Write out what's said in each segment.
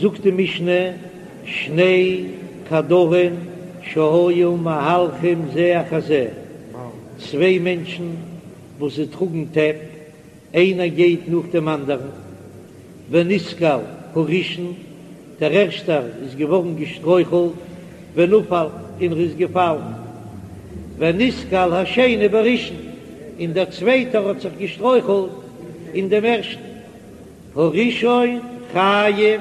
זאגט די משנה, שני קדרין שהיו מהלכים זה אחר זה, צוויי מענטשן וואס זיי טראגן טעפ, איינער גייט נאך דעם אנדערן, ונתקל הראשון, דער ערשטער איז געווארן געשטרויכלט, ונפל, און ער איז געפאלן, ונתקל השני בראשון, און דער צווייטער האט זיך געשטרויכלט אין דעם ערשטן, הראשון חייב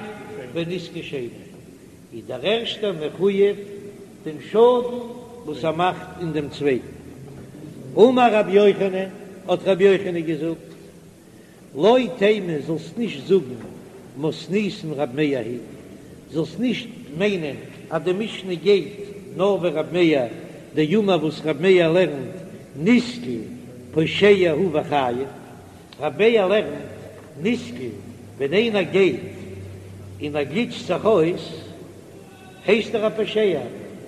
בנזקי שני, איז דער ערשטער מחויב דעם שאדן וואס ער מאכט אין דעם צווייטן. אמר רבי יוחנן, האט רבי יוחנן געזאגט, לא תימא זאלסט נישט זאגן מתניתין רב מאיר היא, זאלסט נישט מיינען אז די משנה גייט נאר ווי רב מאיר, דאמר וואס רב מאיר לערנט נתקל פושע הוא וחייב, רב מאיר לערנט נתקל ווען איינער גייט און ער גליטשט זיך אויס הייסט ער א פושע,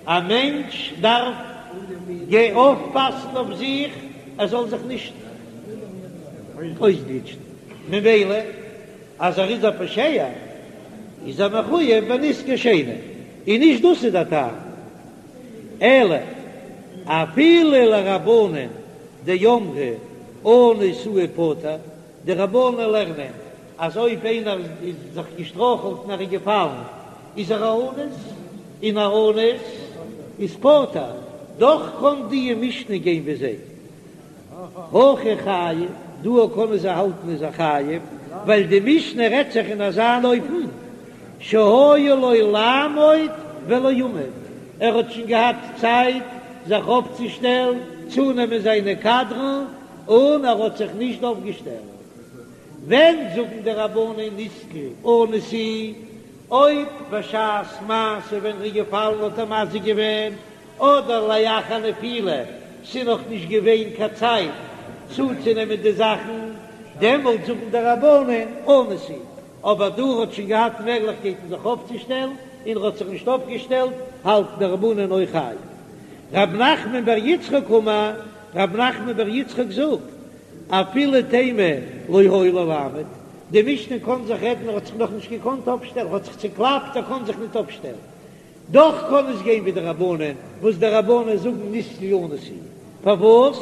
א מענטש דארף אויפפאסן אויף זיך ער זאל זיך נישט אויסגליטשן, ממילא אז ער איז א פושע איז ער מחויב בנזקי שני, און נישט דאס איז דער טעם, אלא אפילו לרבנן דאמרי אנוס הוא ופטור, די רבנן לערנען אז אויב איינער איז זיך געשטרויכלט און ער איז געפאלן איז ער א אנוס, און א אנוס איז פטור, דאך קען די משנה גיין ווי זיי. הכא חייב, דא קענען זיי האלטן איז ער חייב, ווייל די משנה רעדט זיך אין אזא אן אופן שהיה לו לעמוד ולא עמד, ער האט שוין געהאט צייט זיך אויפצושטעלן, צונעמען זיינע קדרן, און ער האט זיך נישט אויפגעשטעלט. ווען זאגן די רבנן נתקל אנוס הוא, אויב בשעת מעשה ווען ער איז געפאלן האט ער מזיק געווען, אדער לאחר נפילה, ס'איז נאך נישט געווען קיין צייט צוצונעמען די זאכן, דעמאלט זאגן די רבנן אנוס הוא, אבער דא האט שוין געהאט מעגליכקייטן זיך אויפצושטעלן און ער האט זיך נישט אויפגעשטעלט, האלטן די רבנן אויך חייב. רב נחמן בר יצחק אמר, רב נחמן בר יצחק זאגט, אפילו תימא לא היה לו לעמוד, די משנה קען זיך רעדן ער האט זיך נאכנישט געקאנט אויפשטעלן, ער האט זיך צוקלאפט ער קען זיך ניט אויפשטעלן, דאך קען עס גיין ווי די רבנן, וואס די רבנן זאגן נתקל אנוס הוא, פארוואס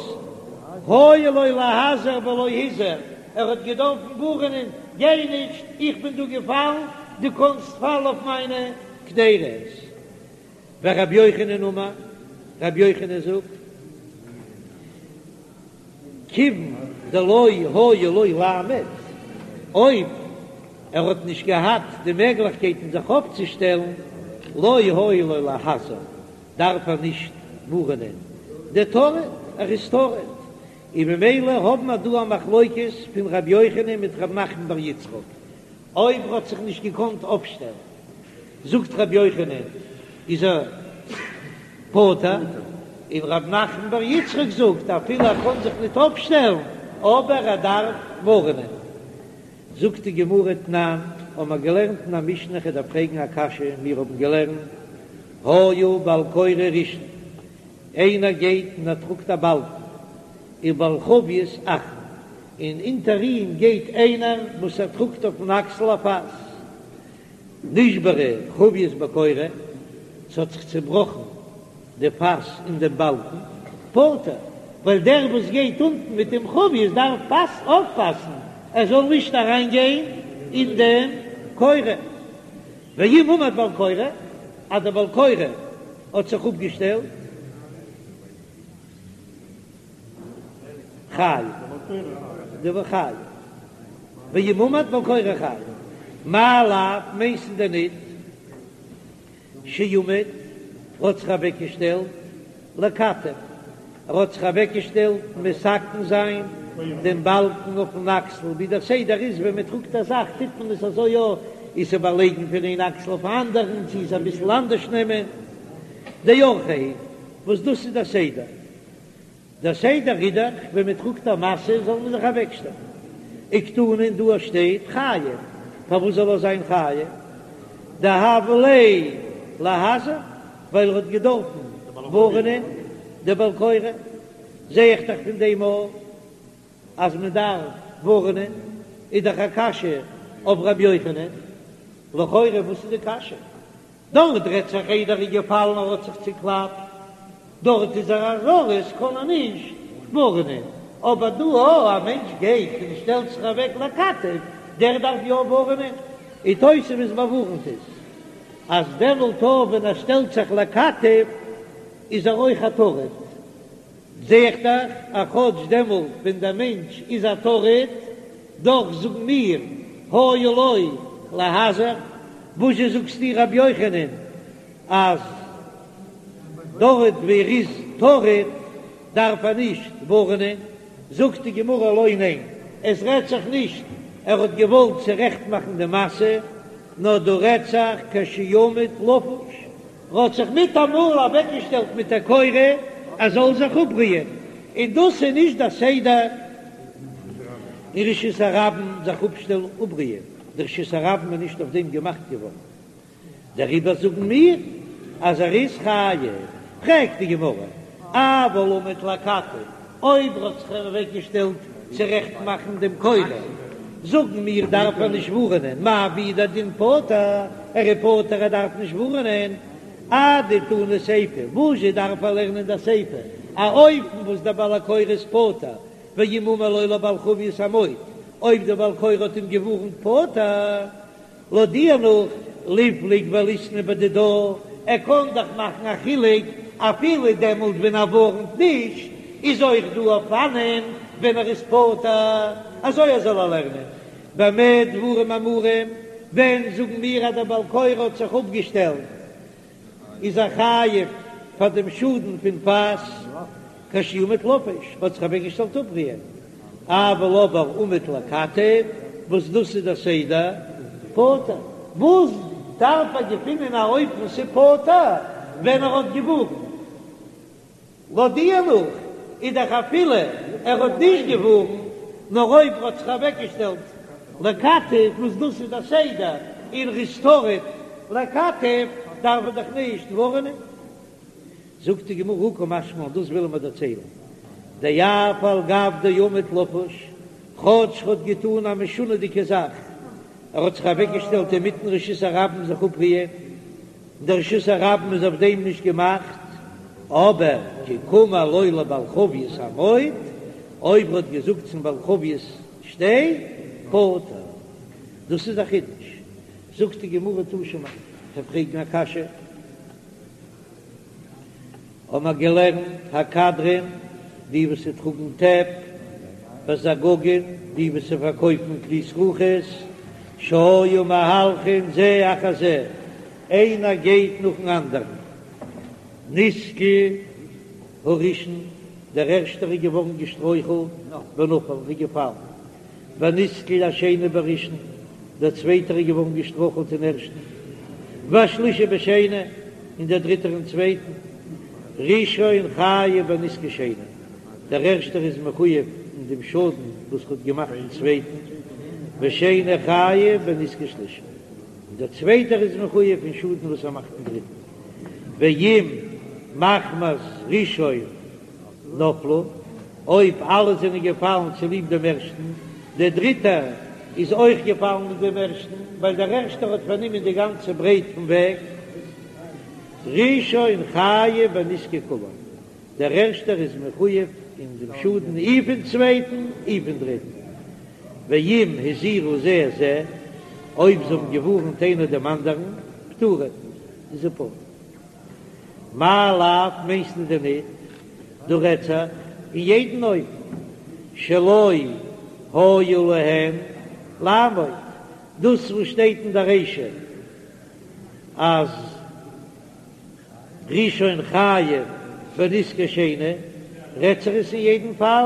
היה לו להזהיר ולא הזהיר, ער האט געדארפן ווארענען, גיי נישט, איך בין דא געפאלן, דו קאנסט פאלן אויף מיינע קדירות. ורבי יוחנן אמר, רבי יוחנן זאגט, כיוון דלא היה לו לעמוד, אויב ער האט נישט געהאט די מעגליכקייטן זיך אויפצושטעלן, לא היה לו להזהיר, דארף ער נישט ווארענען, דטריד, ער איז טרוד, און ממילא האבן מיר דא א מחלוקת פון ר' יוחנן מיט ר' נחמן בר יצחק, אויב ער האט זיך נישט געקאנט אויפשטעלן. זאגט רבי יוחנן איז ער פטור, און רב נחמן בר יצחק זאגט אפילו ער קען זיך ניט אויפשטעלן אבער ער דארף ווארענען. זאגט די גמרא תנן, האבן מיר געלערנט אין א משנה כ'דארף פרעגן א קשיא, מיר האבן געלערנט היה בעל קורה ראשון, איינער גייט און ער טראגט א באלקן, ובעל חבית אחרון, און אונטער אים גייט איינער וואס ער טראגט אויפן אקסל א פאס, נשברה חבית בקורה, ס'האט זיך צעבראכן די פאס אין דעם באלקן, פטור, ווייל דער וואס גייט אונטן מיט דעם חבית דארף פאס אויפפאסן ער זאל נישט אריין גיין אין דעם קורה. ואם עמד בעל קורה, אז דער בעל קורה האט זיך אפגעשטעלט, חייב, דבר חייב, ואם עמד בעל קורה חייב, מאי לאו מיינסטו דען ניט שעמד האט זיך אוועקגעשטעלט לכתף, ער האט זיך אוועקגעשטעלט מתקן זיין דעם באלקן אויפן אקסל, ווי דער סדר איז ווען מען טראגט א זאך טוט מען עס אזוי יא, איז איבערלייגן פון איין אקסל אויפן אנדערן, צו עס אביסל אנדערש נעמען, דאורחיה הוא, וואס דאס איז דער סדר. דער סדר איז דאך ווען מען טראגט א משא זאל מען זיך אוועקשטעלן. וקתני און דא שטייט חייב, פארוואס זאל ער זיין חייב? דהוה ליה להזהיר, ווייל ער האט געדארפן ווארענען די בעל קורה, זע איך דאך פון דעם אויך אז מען דארף ווארענען, איז דאך א קשיא אויף ר' יוחנן. לכאורה וואס איז די קשיא? דארט רעדט זיך איידער ער איז געפאלן ער האט זיך צוקלאפט, דארט איז ער א זריז קען ער נישט ווארענען, אבער דא א א מענטש גייט און שטעלט זיך אוועק לכתף, דער דארף יא ווארענען, און תוספות באווארנט עס אז דעמאלט אויך ווען ער שטעלט זיך לכתף איז ער אויך א טרוד. זע איך דאך אז כאטש דעמאלט ווען דער מענטש איז א טרוד, דאך זאגן מיר היה לו להזהיר. וואזשע זאגסטו רבי יוחנן אז דארט ווי ער איז טרוד דארף ער נישט ווארענען? זאגט די גמרא לא ניין, עס רעדט זיך נישט ער האט געוואלט צורעכט מאכן די משא, נאר דא רעדט זיך כשעמד לפוש, ר'האט זיך מיטאמאל אוועקגעשטעלט מיט דער קורה ער זאל זיך אפרוען, און דאס איז נישט דער סדר אין רשות הרבים זיך אפשטעלן אפרוען, די רשות הרבים איז נישט אויף דעם געמאכט געווארן, דעריבער זאגן מיר אז ער איז חייב. פרעגט די גמרא, אבל עמד לכתף, אויב ר'האט זיך אוועקגעשטעלט צורעכט מאכן דעם קורה, זאגן מיר דארף ער נישט ווארענען, מאי והוא דין פטור, ער איז פטור ער דארף נישט ווארענען, אדתני סיפא, וואזשע דארף ער לערנען די סיפא, א אופן וואס דער בעל הקורה איז פטור, ואם אמר לו לבעל חבית עמוד, אויב דער בעל קורה האט אים געווארנט פטור. לויט דיר נאך ליפלוג וליתני בדידה, ער קען דאך מאכן א חילוק אפילו דעמאלט ווען ער ווארנט נישט, איז אויך דא אופנים ווען ער איז פטור, אזוי ער זאל ער לערנען. במה דברים אמורים, ווען זאגן מיר אז דער בעל קורה האט זיך אפגעשטעלט איז ער חייב פאר דעם שאדן פון פאס כשעמד לפוש, האט זיך אוועקגעשטעלט אפרוען, אבל אבער עמד לכתף, וואס דאס איז דער סדר, פטור. וואס דארף ער געפינען א אופן ס'איז פטור ווען ער האט געווארנט? לויט דיר נאך איז דאך אפילו ער האט נישט געווארנט, נאר אויב ער האט זיך אוועקגעשטעלט לכתף, וואס דאס איז דער סדר און ר'איז טרוד לכתף, דארף ער דאך נישט ווארענען. זאגט די גמרא הא קא משמע לן, דאס ווילן מיר דערציילן, דאף על גב דעמד לפוש, כאטש ר'האט געטאן א משונה'דיגע זאך, ער האט זיך אוועקגעשטעלט אינמיטן רשות הרבים זיך אפרוען, דער רשות הרבים איז אויף דעם נישט געמאכט, אבער כי קאמר לו לבעל חבית עמוד, אויב ער האט געזאגט צום בעל חבית שטיי, פטור. דאס איז א חידוש. זאגט די גמרא תא שמע, כ'וועל פרעגן א קשיא. האבן מיר געלערנט הקדרין, די וואס טראגן טעפ, והזגגין, די וואס פארקויפן כלי זכוכית, שהיו מהלכין זה אחר זה, איינער גייט נאכן אנדערן, נתקל הראשון, דער ערשטער איז געווארן געשטרויכלט, ונפל, איז געפאלן, ונתקל השני בראשון, דער צווייטער איז געווארן געשטרויכלט אין ערשטן, והשלישי בשני, און דער דריטער אין צווייטן, ראשון חייב בנזקי שני, דער ערשטער איז מחויב אין דעם שאדן וואס האט געמאכט אין צווייטן, ושני חייב בנזקי שלישי, און דער צווייטער איז מחויב אין שאדן וואס ער מאכט אין דריטן, ואם מחמת ראשון נפלו, אויב אלע זענען געפאלן צוליב דעם ערשטן, דער דריטער איז אויך געפאלן מיט דעם ערשטן, ווייל דער ערשטער האט פארנומען די גאנצע ברייט פון וועג. ראשון חייב בנזקי כולם, דער ערשטער איז מחויב אין דעם שאדן אי פון צווייטן אי פון דריטן. ואם הזהירו זה את זה, אויב זיי האבן געווארנט איינער דעם אנדערן, פטורין, איז ער פטור. מאי לאו מיינסטו דען ניט? דא רעדט זיך אין יעדן אופן שלא היה להם לעמוד, דאס וואס שטייט אין דער רישא אז ראשון חייב בנזקי שני, רעדט זיך עס אין יעדן פאל,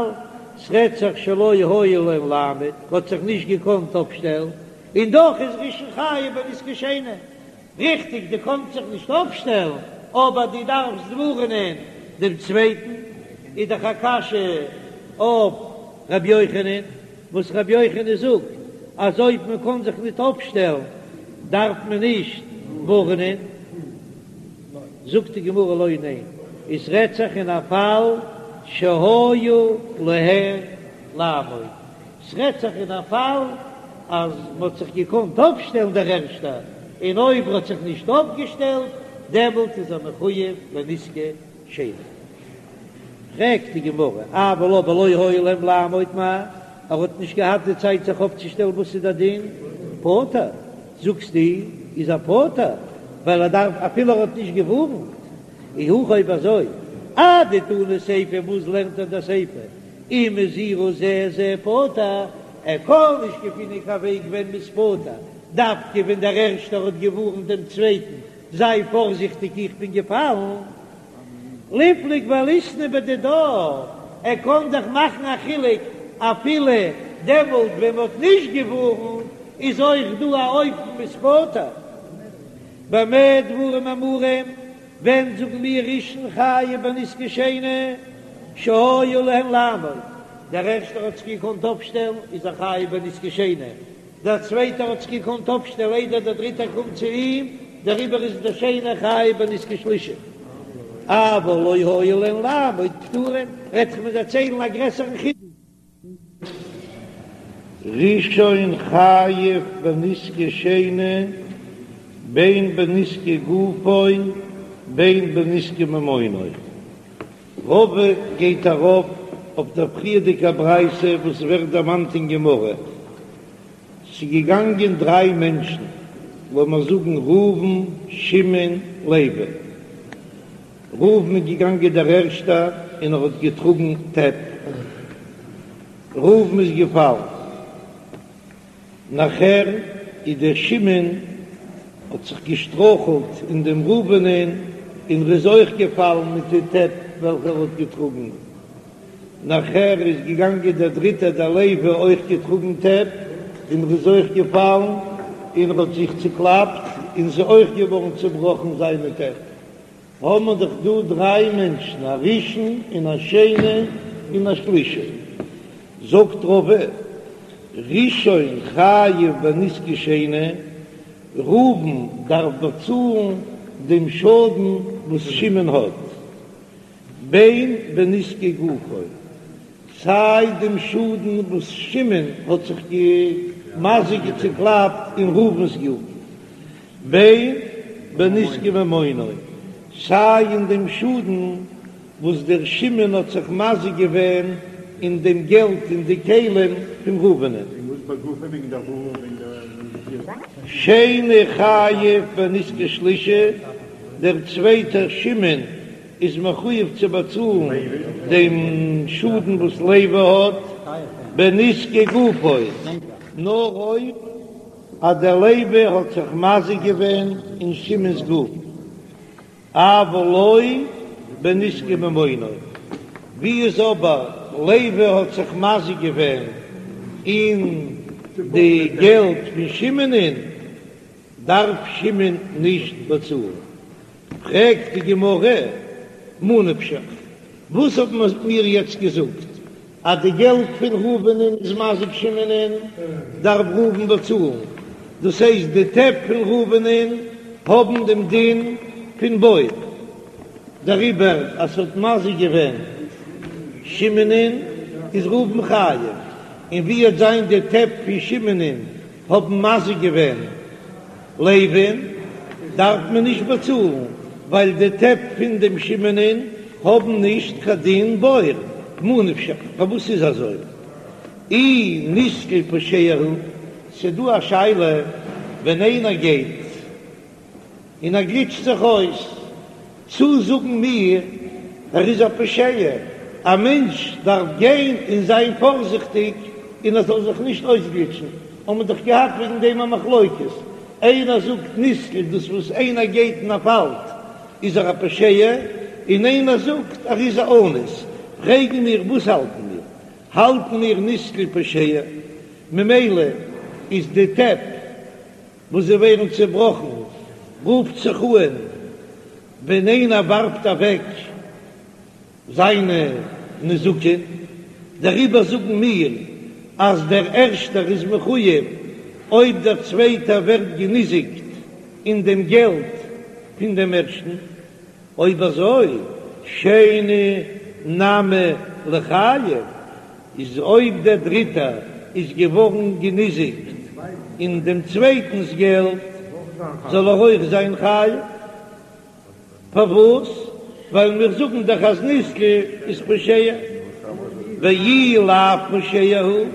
ס'רעדט זיך שלא היה להם לעמוד, האט זיך נישט געקאנט אפשטעלן, און דאך איז ראשון חייב בנזקי שני. ריכטיג, דו קאנסט זיך נישט אויפשטעלן, אבער דו דארפסט ווארענען דעם צווייטן. איז דאך א קשיא אויף ר' יוחנן, וואס ר' יוחנן זאגט אז אויב מען קען זיך ניט אויפשטעלן דארף מען נישט ווארענען. זאגט די גמרא לא, ניין, עס רעדט זיך אין א פאל שהיה להם לעמוד, ס'רעדט זיך אין א פאל אז מ'האט זיך געקאנט אויפשטעלן דער ערשטער. און אויב ער האט זיך נישט אויפגעשטעלט דעמאלט איז ער מחויב בנזקי שני. פרעגט די גמרא, אבל אבער לא היה להם לעמוד מאי, ער האט נישט געהאט די צייט זיך אויפצושטעלן וואס איז דער דין? פטור, זאגסטו איז ער פטור ווייל ער דארף אפילו ער האט נישט געווארנט, אי הכי אויב אזוי אדתני סיפא וואס לערנט ער די סיפא אם הזהירו זה את זה פטור, ער קען נישט געפינען קיין וועג ווען מ'איז פטור, דווקא ווען דער ערשטער האט געווארנט דעם צווייטן זיי פארזיכטיג איך בין געפאלן, ליפלוג וליתני בדידה, ער קען דאך מאכן א חילוק אפילו דעמאלט ווען מ'האט נישט געווארנט איז אויך דא א אופן מ'איז פטור. במה דברים אמורים, ווען זאגן מיר ראשון חייב בנזקי שני שהיה להן לעמוד, דער ערשטער האט זיך געקאנט אויפשטעלן איז ער חייב בנזקי שני, דער צווייטער האט זיך געקאנט אויפשטעלן איידער דער דריטער קומט צו אים, דעריבער איז דער שני חייב בנזקי שלישי. אבל לא היה להן לעמוד פטורין, רעדט זיך מיר דערציילן א גרעסערן חידוש. ראשון חייב בנזקי שני בין בנזקי גופו בין בנזקי ממונו. רבא גייט ארויף אויף דער פריערדיגער ברייתא וואס ווערט דערמאנט אין גמרא, ס'איז געגאנגען דריי מענטשן, לאמיר זאגן ראובן, שמעון, לוי. ראובן איז געגאנגען דער ערשטער און ער האט געטראגן טעפ. ראובן איז געפאלן. נאכער איז דער שמעון האט זיך געשטרויכלט אין דעם ראובנ'ען און ער איז אויך געפאלן מיט די טעפ וועלכע ער האט געטראגן. נאכער איז געגאנגען דער דריטער דער לוי אויך געטראגן טעפ און ער איז אויך געפאלן און ער האט זיך צוקלאפט און ס'איז אויך געווארן צובראכן זיינע טעפ. האבן מיר דאך דא דריי מענטשן, א ראשון און א שני און א שלישי. זאגט רבא, ראשון חייב בנזקי שני, ראובן דארף באצאלן דעם שאדן וואס שמעון האט, בין בנזקי גופו, סיי דעם שאדן וואס שמעון האט זיך געמזיק'ט צוקלאפט אין ראובן'ס גוף, בין בנזקי ממונו, סיי אין דעם שאדן וואס דער שמעון האט זיך מזיק געווען אין דעם געלט און די כלים פון ראובנ'ען. שני חייב בנזקי שלישי, דער צווייטער שמעון איז מחויב צו באצאלן דעם שאדן וואס לוי האט בנזקי גופו, נאר אויב אז דער לוי האט זיך מזיק געווען אין שמעון'ס גוף, אבל לא בנזקי ממונו, ווי איז אבער לוי האט זיך מזיק געווען אין די געלט פון שמעון'ען, דארף שמעון נישט באצאלן. פרעגט די גמרא, מה נפשך, וואס האט מען מיר יעצט געזאגט אז די געלט פון ראובנ'ען איז מזיק שמעונ'ען, דארף ראובן באצאלן, דאס הייסט די טעפ פון ראובנ'ען האבן דעם דין פון בור, דעריבער אז ס'האט מזיק געווען שמעונ'ען איז ראובן חייב, און ווי וועט זיין די טעפ פון שמעונ'ען האבן מזיק געווען לוי'ן דארף מען נישט באצאלן, ווייל די טעפ פון דעם שמעונ'ען האבן נישט קיין דין בור, ממה נפשך, פארוואס איז אזוי? אי נתקל פושע הוא, ס'דא א שאלה ווען איינער גייט און ער גליטשט זיך אויס, צו זאגן מיר ער איז א פושע, א מענטש דארף גיין און זיין פארזיכטיג און ער זאל זיך נישט אויסגליטשן, האבן מיר דאך געהאט וועגן דעם א מחלוקת, איינער זאגט נתקל דאס וואס איינער גייט און ער פאלט איז ער א פושע, און איינער זאגט ער איז א אנוס, פרעגן מיר וואס האלטן מיר, האלטן מיר נתקל פושע, ממילא איז די טעפ וואס זיי ווערן צעבראכן, רופט זיך אן ווען איינער ווארפט אוועק זיינע נזקין, דעריבער זאגן מיר אז דער ערשטער איז מחויב אויב דער צווייטער ווערט געניזיקט אין דעם געלט פון דעם ערשטן. אויב אזוי שני נמי ליחייב, איז אויב דער דריטער איז געווארן געניזיקט אין דעם צווייטנס געלט. זאל ער אויך זיין חייב. פארוואס? ווייל מיר זאגן דאך אז נסקל איז פושע, ואי לאו פושע הוא,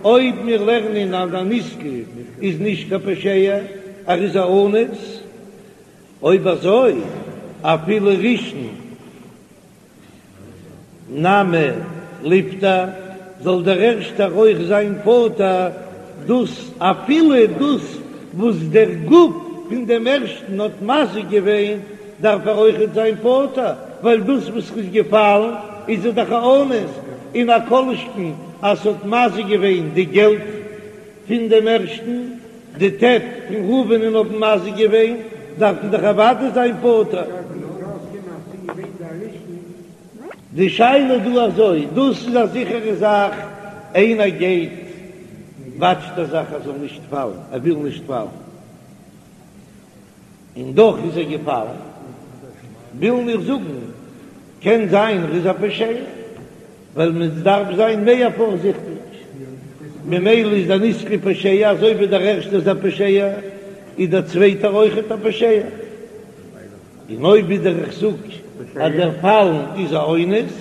אויב מיר לערנען אז א נסקל איז נישט קיין פושע, ער איז א אנוס, אויב אזוי אפילו ראשון נמי ליפטר, זאל דער ערשטער אויך זיין פטור, דאס אפילו דאס וואס דער גוף פון דעם ערשטן האט מזיק געווען, דארף ער אויכעט זיין פטור, ווייל דאס וואס ר'איז געפאלן איז ער דאך א אנוס, און א כל שכן אז ס'האט מזיק געווען די געלט פון דעם ערשטן, די טעפ פון ראובנ'ען האבן מזיק געווען, דארף מען דאך אוודאי זיין פטור. די שאלה איז דא אזוי, דאס איז א זיכערע זאך, איינער גייט וואטשט ער זיך ער זאל נישט פאלן, ער וויל נישט פאלן, און דאך איז ער געפאלן, ווילן מיר זאגן, קען זיין ער איז א פושע, ווייל מען דארף זיין מער פארזיכטיג, ממילא איז דער נסקל פושע, אזוי ווי דער ערשטער איז א פושע, איז דער צווייטער אויכעט א פושע. און אויב ווידער איך זאג אז דער פאלן איז א אונס,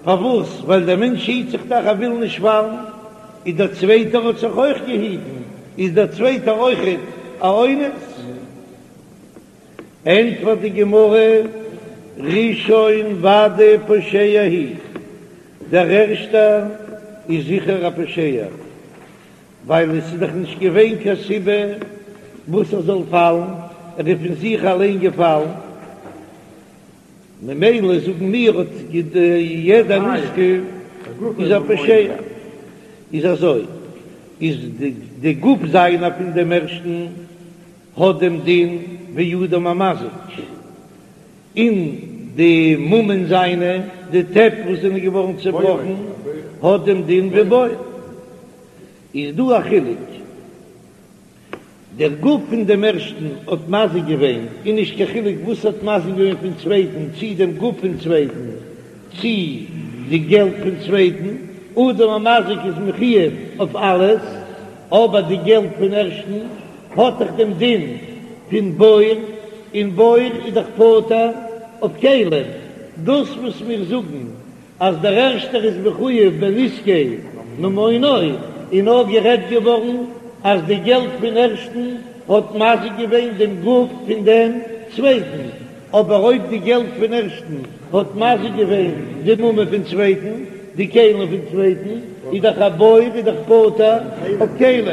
פארוואס? ווייל דער מענטש היט זיך דאך ער וויל נישט פאלן, איז דער צווייטער האט זיך אויך געהיטן, איז דער צווייטער אויכעט א אונס? ענטפערט די גמרא, ראשון ודאי פושע הוא, דער ערשטער איז זיכער א פושע, ווייל עס איז דאך נישט געווען קיין סיבה וואס ער זאל פאלן, ער איז פון זיך אליין געפאלן, ממילא זאגן מיר האט יעדער נסקל איז א פושע, איז אזוי איז די גוף זיינער פון דעם ערשטן האט דעם דין ווי אדם המזיק, און די ממון זיינע, די טעפ וואס זענען געווארן צעבראכן, האט דעם דין ווי בור. איז דא א חילוק, דער גוף פון דעם ערשטן האט מזיק געווען, און נישט קיין חילוק וואס האט מזיק געווען פון צווייטן, צי דעם גוף פון צווייטן, צי די געלט פון צווייטן, אדם המזיק איז מחויב אויף אלעס, אבער די געלט פון ערשטן האט דאך דעם דין פון בור, און בור איז דאך פטור אויף כלים, דאס וואס מיר זאגן אז דער ערשטער איז מחויב בנזקי ממונו, איז נאר גערעדט געווארן אז די געלט פון ערשטן האט מזיק געווען דעם גוף פון דעם צווייטן, אבער אויב די געלט פון ערשטן האט מזיק געווען די ממון פון צווייטן, די כלים פון צווייטן, איז דאך א בור איז דאך פטור אויף כלים.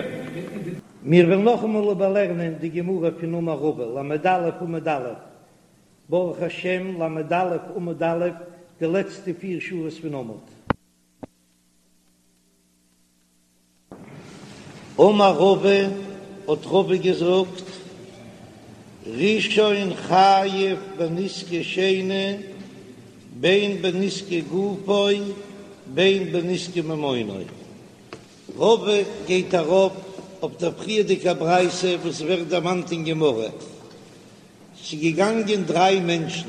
מיר וועלן נאכאמאל איבערלערנען די גמרא פון אמר רבא, ל"א עמוד א', ברוך השם ל"א עמוד א', די לעצטע פיר שורות פון עמוד. אמר רבא, האט רבא געזאגט, ראשון חייב בנזקי שני, בין בנזקי גופו בין בנזקי ממונו. רבא גייט ארויף אויף דער פריערדיגע ברייתא וואס ווערט דערמאנט אין גמרא, ס'איז געגאנגען דריי מענטשן,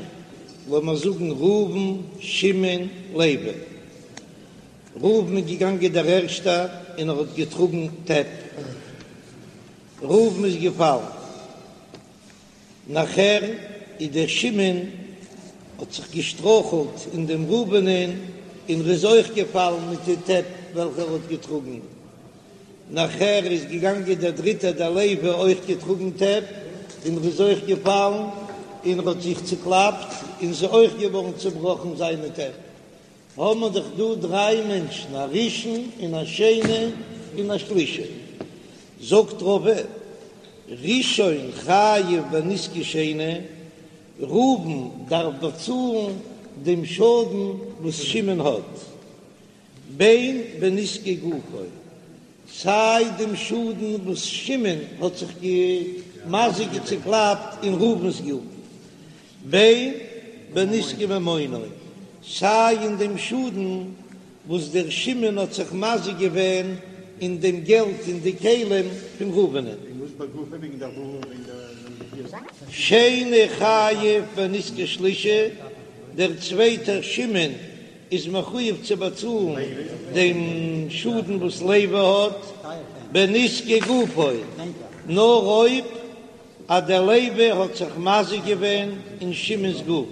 לאמיר זאגן ראובן, שמעון, לוי. ראובן איז געגאנגען דער ערשטער און ער האט געטראגן טעפ. ראובן איז געפאלן. נאכער איז דער שמעון האט זיך געשטרויכלט אין דעם ראובנ'ען און ר'איז אויך געפאלן מיט די טעפ וועלכע ער האט געטראגן. נאכער איז געגאנגען דער דריטער דער לוי אויך געטראגן טעפ און ר'איז אויך געפאלן און ר'האט זיך צוקלאפט און ס'איז אויך געווארן צובראכן זיינע טעפ. האבן מיר דאך דא דריי מענטשן א ראשון און א שני און א שלישי. זאגט רבא, ראשון חייב בנזקי שני, ראובן דארף באצאלן דעם שאדן וואס שמעון האט, בין בנזקי גופו, סיי דעם שאדן וואס שמעון האט זיך געמזיק'ט צוקלאפט אין ראובן'ס גוף, בין בנזקי ממונו, סיי אין דעם שאדן וואס דער שמעון האט זיך מזיק געווען אין דעם געלט און די כלים פון ראובנ'ען. שני חייב בנזקי שלישי, דער צווייטער שמעון איז מחויב צו באצאלן דעם שאדן וואס לוי האט בנזקי גופו, נאר אויב. אז דער לוי האט זיך מזיק געווען אין שמעון'ס גוף,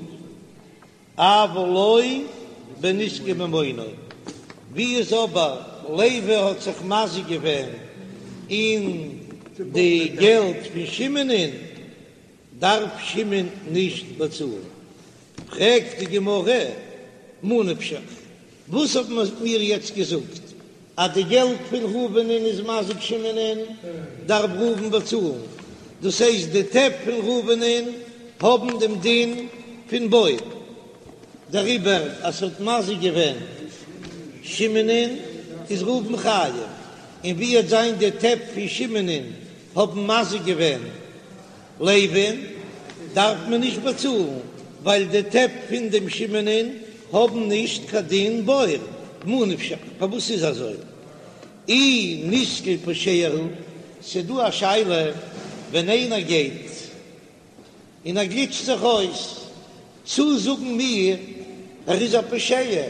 אבל לא בנזקי ממונו, ווי איז אבער לוי האט זיך מזיק געווען אין די געלט פון שמעון'ען, דארף שמעון נישט באצאלן. פרעגט די גמרא, מה נפשך, וואס האט מען מיר יעצט געזאגט אז די געלט פון ראובנ'ען איז מזיק שמעונ'ען, דארף ראובן באצאלן, דאס הייסט די טעפ פון ראובנ'ען האבן דעם דין פון בור, דעריבער אז ס'האט מזיק געווען שמעונ'ען איז ראובן חייב, און ווי וועט זיין די טעפ פון שמעונ'ען האבן מזיק געווען לוי'ן דארף מען נישט באצאלן, ווייל די טעפ פון דעם שמעונ'ען האבן נישט קיין דין בור, מה נפשך, פארוואס איז אזוי? אי נתקל פושע הוא, ס'דא א שאלה ווען איינער גייט און ער גליטשט זיך אויס, צו זאגן מיר ער איז א פושע,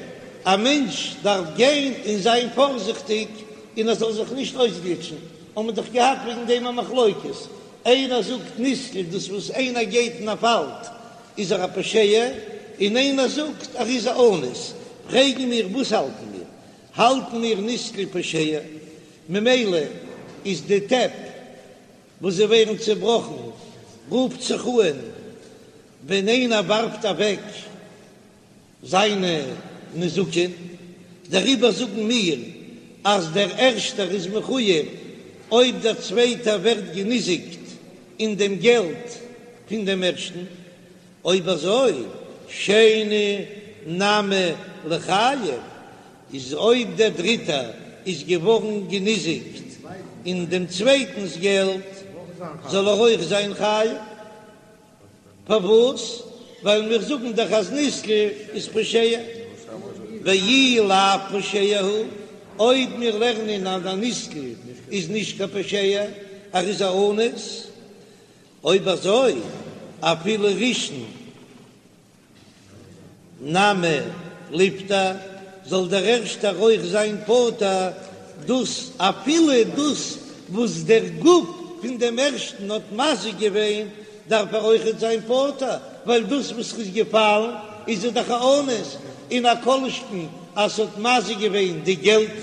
א מענטש דארף גיין און זיין פארזיכטיג און ער זאל זיך נישט אויסגליטשן, האבן מיר דאך געהאט וועגן דעם א מחלוקת, איינער זאגט נתקל דאס וואס איינער גייט און ער פאלט איז ער א פושע, און איינער זאגט ער איז א אנוס, פרעגן מיר וואס האלטן מיר, האלטן מיר נתקל פושע, ממילא איז די טעפ וואס זיי ווערן צעבראכן רופט זיך אן ווען איינער ווארפט אוועק זיינע נזקין, דעריבער זאגן מיר אז דער ערשטער איז מחויב אויב דער צווייטער ווערט געניזיקט אין דעם געלט פון דעם ערשטן, אויב אזוי שני נמי ליחייב, איז אויב דער דריטער איז געווארן געניזיקט אין דעם צווייטנס געלט זאל ער אויך זיין חייב. פארוואס? ווייל מיר זאגן דאך אז נתקל איז פושע, ואי לאו פושע הוא, אויב מיר לערנען אז א נתקל איז נישט קיין פושע, ער איז א אנוס, אויב אזוי אפילו ראשון נמי ליפטר, זאל דער ערשטער אויך זיין פטור, דאס אפילו דאס וואס דער גוף פון דעם ערשטן האט מזיק געווען, דארף ער אויכעט זיין פטור, ווייל דאס וואס ר'איז געפאלן איז ער דאך א אנוס, און א כל שכן אז ס'האט מזיק געווען די געלט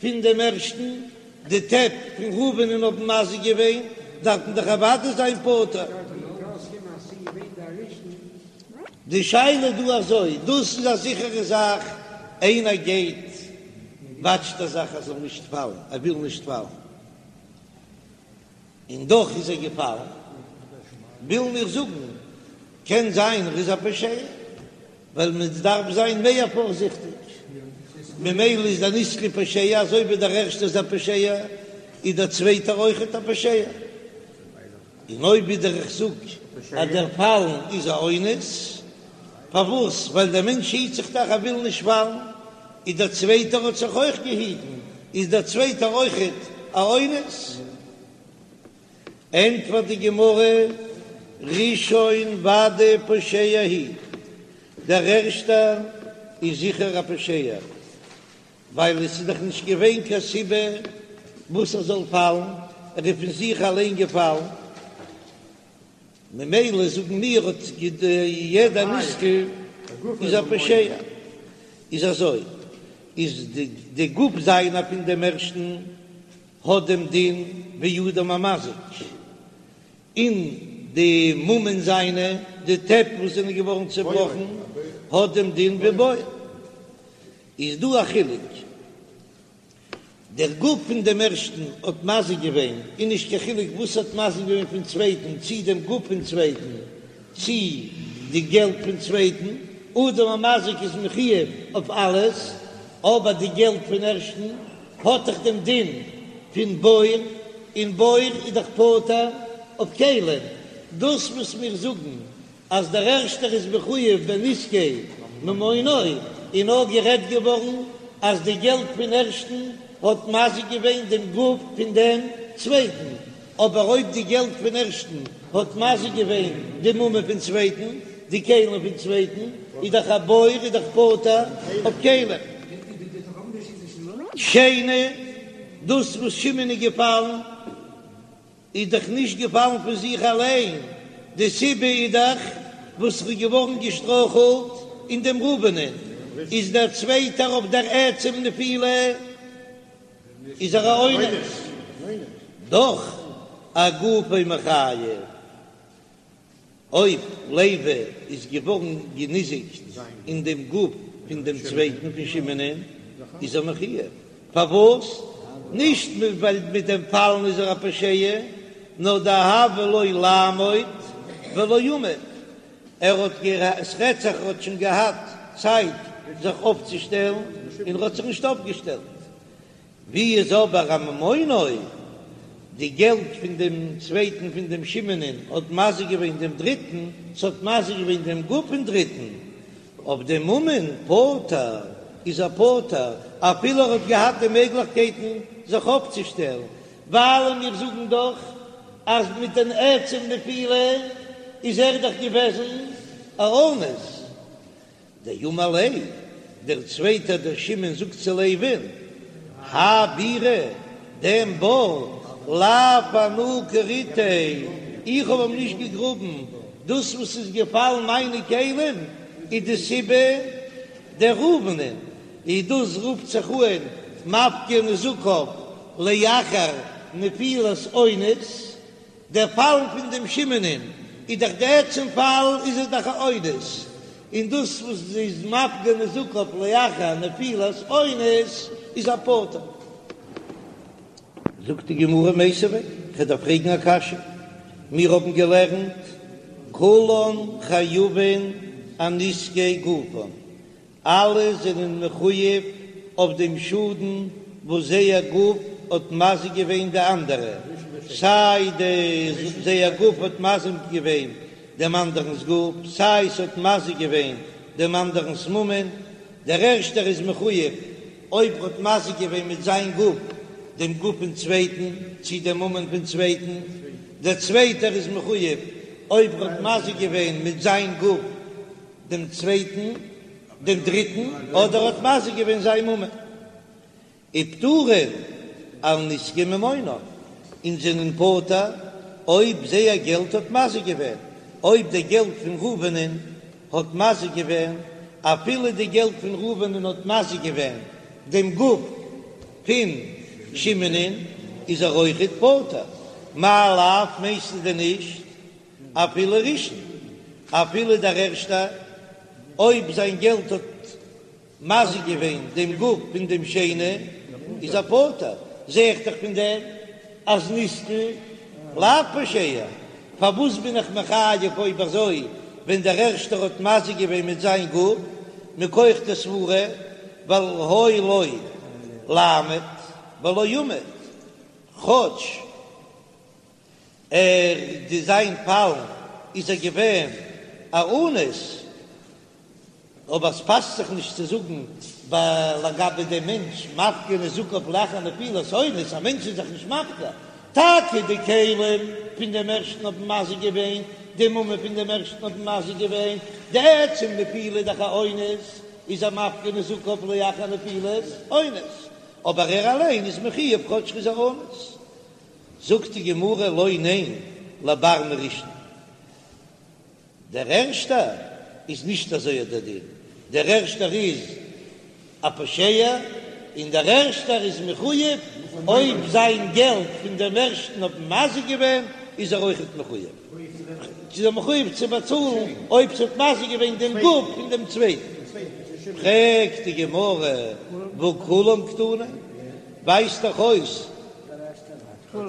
פון דעם ערשטן, די טעפ פון ראובנ'ען האבן מזיק געווען, דארף מען דאך אוודאי זיין פטור. די שאלה דא אזוי, דאס איז א זיכערע זאך, איינער גייט וואטשט ער זיך ער זאל נישט פאלן, ער וויל נישט פאלן, און דאך איז ער געפאלן, ווילן מיר זאגן, קען זיין ער איז א פושע, ווייל מען דארף זיין מער פארזיכטיג, ממילא איז דער נתקל פושע, אזוי ווי דער ערשטער איז א פושע, איז דער צווייטער אויכעט א פושע. און אויב ווידער איך זאג אז דער פאלן איז א אונס, פארוואס? ווייל דער מענטש היט זיך דאך ער וויל נישט פאלן, איז דער צווייטער האט זיך אויך געהיטן, איז דער צווייטער אויכעט א אונס? ענטפערט די גמרא, ראשון ודאי פושע הוא, דער ערשטער איז זיכער א פושע, ווייל עס איז דאך נישט געווען קיין סיבה וואס ער זאל פאלן, ער איז פון זיך אליין געפאלן, ממילא זאגן מיר האט יעדער נתקל איז א פושע, איז אזוי איז די גוף זיינער פון דעם ערשטן האט דעם דין ווי אדם המזיק, און די ממון זיינע, די טעפ וואס זענען געווארן צעבראכן, האט דעם דין ווי בור. איז דא א חילוק, דער גוף פון דעם ערשטן האט מזיק געווען, און נישט קיין חילוק וואס האט מזיק געווען פון צווייטן, צי דעם גוף פון צווייטן, צי די געלט פון צווייטן, אדם המזיק איז מחויב אויף אלעס, אבער די געלט פון ערשטן האט דאך דעם דין פון בור, און בור איז דאך פטור אויף כלים, דאס וואס מיר זאגן אז דער ערשטער איז מחויב בנזקי ממונו, איז נאר גערעדט געווארן אז די געלט פון ערשטן האט מזיק געווען דעם גוף פון דעם צווייטן, אבער אויב די געלט פון ערשטן האט מזיק געווען די ממון פון צווייטן, די כלים פון צווייטן, איז דאך א בור איז דאך פטור אויף כלים. שני, דאס וואס שמעון איז געפאלן. איז דאך נישט געפאלן פון זיך אליין, די סיבה איז דאך וואס ר'איז געווארן געשטרויכלט אין דעם ראובנ'ען, איז דער צווייטער אויף דער עצם נפילה איז ער א אונס, דאך אגופו מיחייב. אויב לוי איז געווארן געניזיקט אין דעם גוף פון דעם צווייטן פון שמעונ'ען, איז ער מחויב. פארוואס? נישט ווייל מיט דעם פאלן איז ער א פושע, נאר דהוה ליה לעמוד ולא עמד, ער האט עס רעדט זיך ער האט שוין געהאט צייט זיך אויפצושטעלן און ער האט זיך נישט אויפגעשטעלט. ווי איז אבער אממונו, די געלט פון דעם צווייטן פון דעם שמעונ'ען האט מזיק געווען דעם דריטן, ס'האט מזיק געווען דעם גוף פון דריטן, אויף דעם ממון פטור איז ער פטור, אפילו ער האט געהאט די מעגליכקייטן זיך אויפצושטעלן, ווייל מיר זאגן דאך אז מיט דעם עצם נפילה איז ער דאך געוועזן א אונס. דאמר ליה, דער צווייטער דער שמעון זאגט צו לוי'ן, האי בירא, דעם בור, לאו אנא כריתיה, איך האב אים נישט געגראבן, דאס וואס איז געפאלן מיינע כלים איז די סיבה דער ראובנ'ען, איז דאס רופט זיך אן מפקיר נזקיו לאחר נפילת אונס, דער פאלן פון דעם שמעונ'ען איז דאך די עצם פאל איז עס דאך א אונס, און דאס וואס איז מפקיר נזקיו לאחר נפילת אונס איז ער פטור. זאגט די גמרא מיתיבי, כ'דארף פרעגן א קשיא, מיר האבן געלערנט כולן חייבין אנזקי גופן, אלע זענען מחויב אויף דעם שאדן וואס זייער גוף האט מזיק געווען די אנדערע, סיי די זייער גוף האט מזיק געווען דעם אנדערנ'ס גוף, סיי ס'האט מזיק געווען דעם אנדערנ'ס ממון, דער ערשטער איז מחויב אויב ער האט מזיק געווען מיט זיין גוף דעם גוף פון צווייטן, צי דעם ממון פון צווייטן, דער צווייטער איז מחויב אויב ער האט מזיק געווען מיט זיין גוף דעם צווייטן, דעם דריטן, אדער האט מזיק געווען זיין ממון. ופטורין על נזקי ממונם, און זענען פטור אויב זייער געלט האט מזיק געווען, אויב די געלט פון ראובנ'ען האט מזיק געווען, אפילו די געלט פון ראובנ'ען האט מזיק געווען דעם גוף פון שמעונ'ען, איז ער אויכעט פטור. מאי לאו, מיינסטו דען נישט אפילו ראשון, אפילו דער ערשטער, אויב זיין געלט האט מזיק געווען דעם גוף פון דעם שני, איז ער פטור, זע איך דאך פון דעם אז נתקל לאו פושע, פארוואס בין איך מחייב אויב אזוי ווען דער ערשטער האט מזיק געווען מיט זיין גוף, מכח די סברה, ווייל היה לו לעמוד ולא עמד, כאטש ער די זיין פאלן איז ער געווען א אונס, אבער עס פאסט זיך נישט צו זאגן ביי לגבי דעם מענטש מפקיר נזקיו לאחר נפילת אונס, א מענטש איז זיך נישט מפקיר, טאקע די כלים פון דעם ערשטן האבן מזיק געווען, די ממון פון דעם ערשטן האבן מזיק געווען, די עצם נפילה איז דאך א אונס, איז ער מפקיר נזקיו לאחר נפילת אונס, אבער ער אליין איז מחויב כאטש ער איז א אונס. זאגט די גמרא לא ניין לבר מראשון, דער ערשטער איז נישט אזוי דער דין, דער ערשטער איז א פושע און דער ערשטער איז מחויב, אויב זיין געלט פון דעם ערשטן האט מזיק געווען איז ער אויכעט מחויב, איז ער מחויב צו באצאלן אויב ס'האט מזיק געווען דעם גוף פון דעם צווייטן. פרעגט די גמרא והא כולם קתני, ווייזט דאך אויס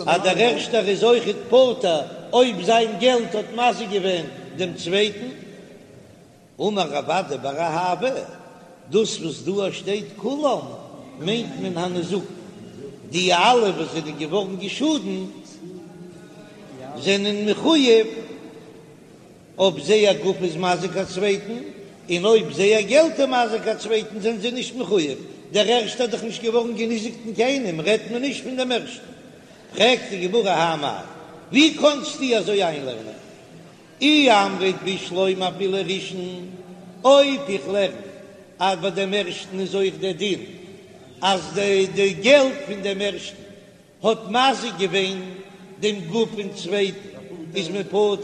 אז דער ערשטער איז אויכעט פטור אויב זיין געלט האט מזיק געווען דעם צווייטן. אמר רב אדא בר אהבה, דאס וואס דא שטייט כולם מיינט מען הניזקין, די אלע וואס זענען געווארן געשאדנט זענען מחויב אויב זייער גוף איז מזיק א צווייטן, און אויב זייער געלט איז מזיק א צווייטן זענען זיי נישט מחויב, דער ערשטער האט דאך נישט געווארן געניזיקט אין קיינעם, רעדט מען נישט פון דעם ערשטן. פרעגט די גמרא האי מאי, ווי קאנסטו אזוי איינלערנען? אי אמרת בשלמא אפילו ראשון, אויב איך לערן אז ביי דעם ערשטן איז אויך דער דין אז די געלט פון דעם ערשטן האט מזיק געווען. דעם גוף פון צווייטן איז מען פטור,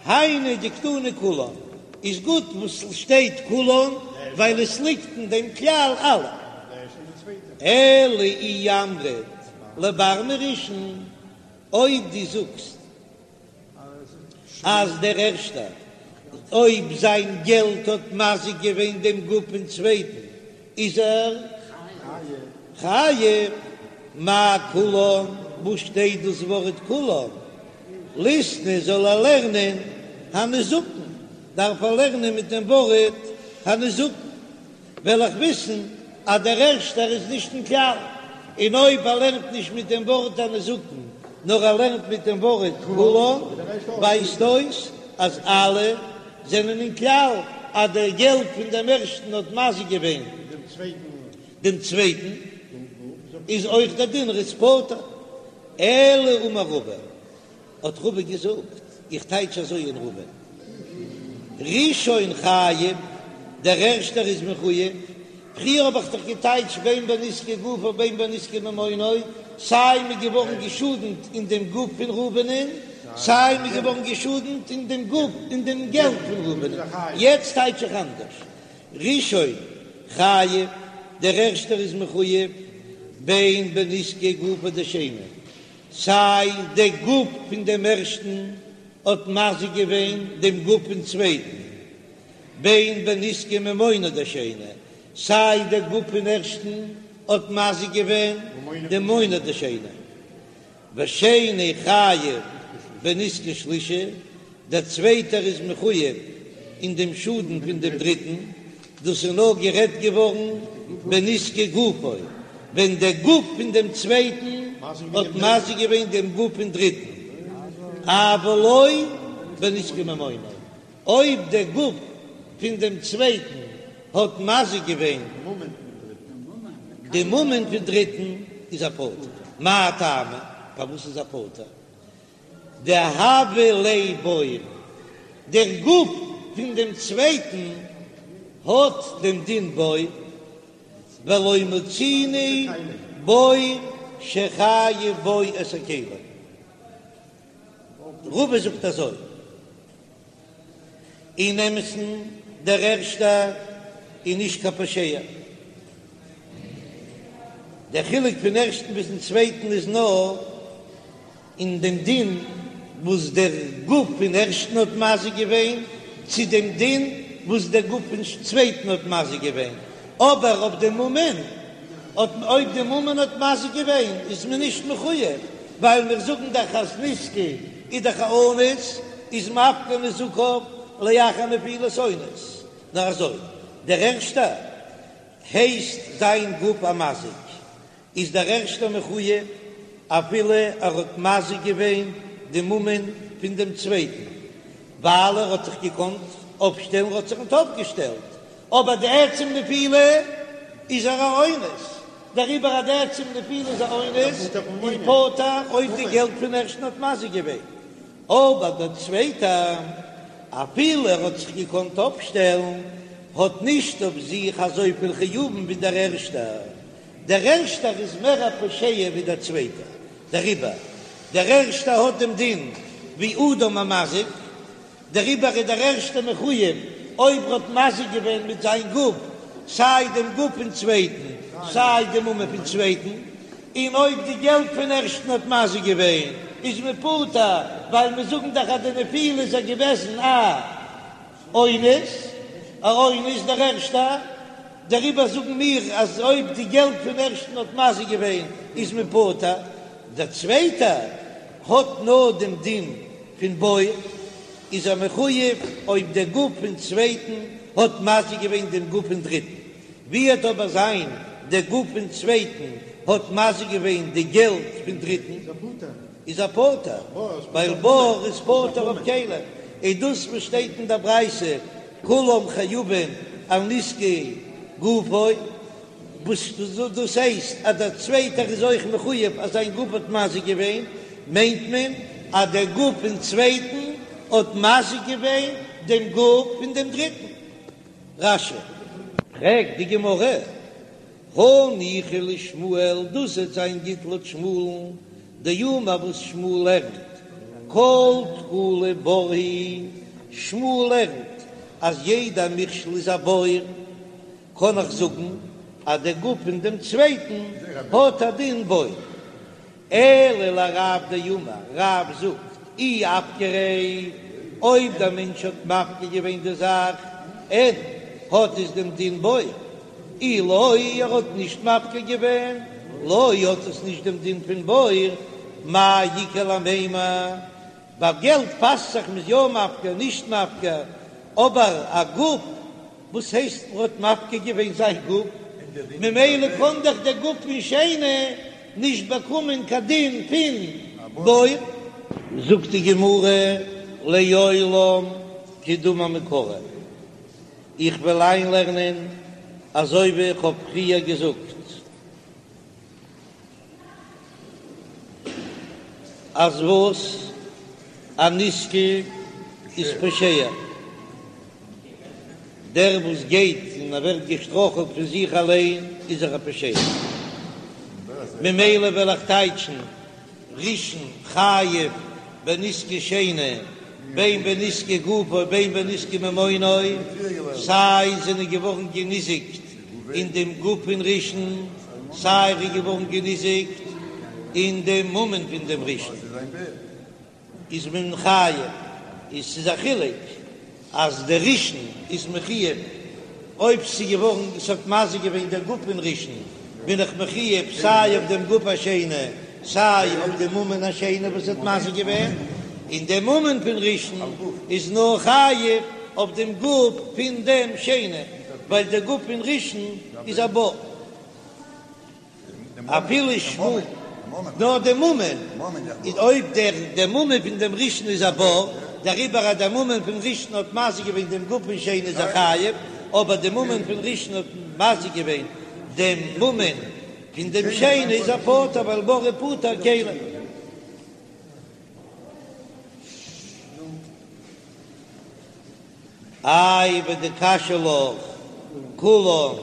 היינו דקתני כולן, איז גוט וואס שטייט כולן ווייל עס ליגט אין דעם כלל אלע. אלא אי אמרת לבר מראשון, אויב דו זאגסט אז דער ערשטער, אויב זיין געלט האט מזיק געווען דעם גוף פון צווייטן, איז ער חייב. מאי כולן, וואו שטייט דאס ווארט כולן? ליתני זאל ער לערנען הניזקין, דארף ער לערנען מיט דעם ווארט הניזקין. וועל איך וויסן אז דער ערשטער איז נישט אין כלל, און אויב ער לערנט נישט מיט דעם ווארט הניזקין, נאר ער לערנט מיט דעם ווארט כולן, ווייזט אויס אז אלע זענען אין כלל, אז דער געלט פון דעם ערשטן האט מזיק געווען דעם צווייטן, איז אויך דער דין ער איז פטור. אלא אמר רבא, האט רבא געזאגט, איך טייטש אזוי אין רבא, ראשון חייב, דער ערשטער איז מחויב, פריער האב איך דאך געטייטשט בין בנזקי גופו בין בנזקי ממונו, סיי מ'איז געווארן געשאדנט אין דעם גוף פון ראובנ'ען, סיי מ'איז געווארן געשאדנט אין דעם גוף אין דעם געלט פון ראובנ'ען, יעצט טייטש איך אנדערש, ראשון חייב, דער ערשטער איז מחויב, בין בנזקי גופו דשני, סיי דער גוף פון דעם ערשטן האט מזיק געווען דעם גוף פון צווייטן, בין בנזקי ממונו דשני, סיי דער גוף פון ערשטן האט מזיק געווען דעם ממונו דשני. ושני חייב בנזקי שלישי, דער צווייטער איז מחויב אין דעם שאדן פון דעם דריטן, דאס איז נאר גערעדט געווארן בנזקי גופו, ווען דער גוף פון דעם צווייטן האט מזיק געווען דעם גוף פון דריטן, אבל לא בנזקי ממונו, אויב דער גוף פון דעם צווייטן האט מזיק געווען די ממון פון דריטן, איז ער פטור. מאי טעמא? פארוואס איז ער פטור? דהוה ליה בור, דער גוף פון דעם צווייטן האט דעם דין בור, ולא מצינו בור שחייב בו את הכלים. רבא זאגט אזוי, אין אמת'ן דער ערשטער איז נישט קיין פושע, דער חילוק פון ערשטן ביזן צווייטן איז נאר אין דעם דין וואס דער גוף פון ערשטן האט מזיק געווען, צו דעם דין וואס דער גוף פון צווייטן האט מזיק געווען, אבער אויף דעם ממון האט אויב די ממון האט מזיק געווען איז מען נישט מחויב, ווייל מיר זאגן דאך אז נזקא איז דאך א אונס, איז מפקיר נזקיו לאחר נפילת אונס, נאר אזוי, דער ערשטער הייסט זיין גוף א מזיק, איז דער ערשטער מחויב אפילו ער האט מזיק געווען די ממון פון דעם צווייטן, ווייל ער האט זיך געקאנט אויפשטעלן, ער האט זיך ניט אויפגעשטעלט, אבער די עצם נפילה איז ער א אונס, דעריבער אז די עצם נפילה איז א אונס איז פטור אויב די געלט פון ערשטן האט מזיק געווען, אבער דער צווייטער אפילו ער האט זיך געקאנט אויפשטעלן האט נישט אויף זיך אזויפיל חיובים ווי דער ערשטער, דער ערשטער איז מער א פושע ווי דער צווייטער, דעריבער דער ערשטער האט דעם דין ווי אדם המזיק, דעריבער איז דער ערשטער מחויב אויב ער האט מזיק געווען מיט זיין גוף סיי דעם גוף פון צווייטן סיי דעם ממון פון צווייטן, און אויב די געלט פון ערשטן האט מזיק געווען איז מען פטור, ווייל מיר זאגן דאך אז די נפילה איז ער געוועזן א אונס, א אונס דער ערשטער, דעריבער זאגן מיר אז אויב די געלט פון ערשטן האט מזיק געווען איז מען פטור, דער צווייטער האט נאר דעם דין פון בור, איז ער מחויב אויב דער גוף פון צווייטן האט מזיק געווען דעם גוף פון דריטן, ווי וועט אבער זיין דער גוף פון צווייטן האט מזיק געווען די געלט פון דריטן, איז ער פטור, ווייל בור איז פטור אויף כלים, און דאס וואס שטייט אין דער ברייתא כולם חייבין על נזקי גופו, וואס דאס הייסט אז דער צווייטער איז אויך מחויב אז זיין גוף האט מזיק געווען, מיינט מען אז דער גוף פון צווייטן האט מזיק געווען דעם גוף פון דעם דריטן. רש"י. פרעגט די גמרא, הניחא לשמואל, דאס וועט זיין גוט לויט שמואל'ן. דאמר וואס שמואל לערנט כל תקלה בור היא, שמואל לערנט אז יעדע מכשול איז א בור, קען איך זאגן אז דער גוף פון דעם צווייטן האט א דין בור. אלא לרב דאמר, רב זאגט, אי אפקריה, אויב דער מענטש האט מפקיר געווען די זאך, אין האט עס דעם דין בור, אי לא, ער האט נישט מפקיר געווען, לא, האט עס נישט דעם דין פון בור, מאי איכא למימר, ביי געלט פאסט זיך מ'איז יא מפקיר נישט מפקיר, אבער א גוף, וואס הייסט מ'האט מפקיר געווען זיין גוף? ממילא קען דאך דער גוף פון שני נישט באקומען קיין דין פון בור. זאגט די גמרא לעולם כדאמר מעיקרא, איך וועל איינלערנען אזוי ווי איך האב פריער געזאגט. אז וואס? א נתקל איז פושע, דער וואס גייט און ער ווערט געשטראכלט פון זיך אליין איז ער א פושע, ממילא וועל איך טייטשן ראשון חייב בנזקי שני בין בנזקי גופו בין בנזקי ממונו, סיי זענען געווארן געניזיקט אין דעם גוף פון ראשון, סיי ער איז געווארן געניזיקט אין דעם ממון פון דעם ראשון, איז מען חייב, איז ס'איז א חילוק אז דער ראשון איז מחויב, אויב ס'איז געווארן, ס'האט מזיק געווען דער גוף פון ראשון, בין איך מחויב סיי אויף דעם גוף השני, סיי אויף דעם ממון השני וואס האט מזיק געווען, און דער ממון פון ראשון איז נאר חייב אויף דעם גוף פון דעם שני, ווייל דער גוף פון ראשון איז א בור. אפילו שמואל, נאר די ממון, איז אויב דער דער ממון פון דעם ראשון איז א בור, דעריבער אז דער ממון פון ראשון האט מזיק געווען דעם גוף פון שני איז ער חייב, אבער די ממון פון ראשון האט מזיק געווען דעם ממון פון דעם שני איז ער פטור ווייל בור איז פוטר כלים. איי ודקשיא לך כולן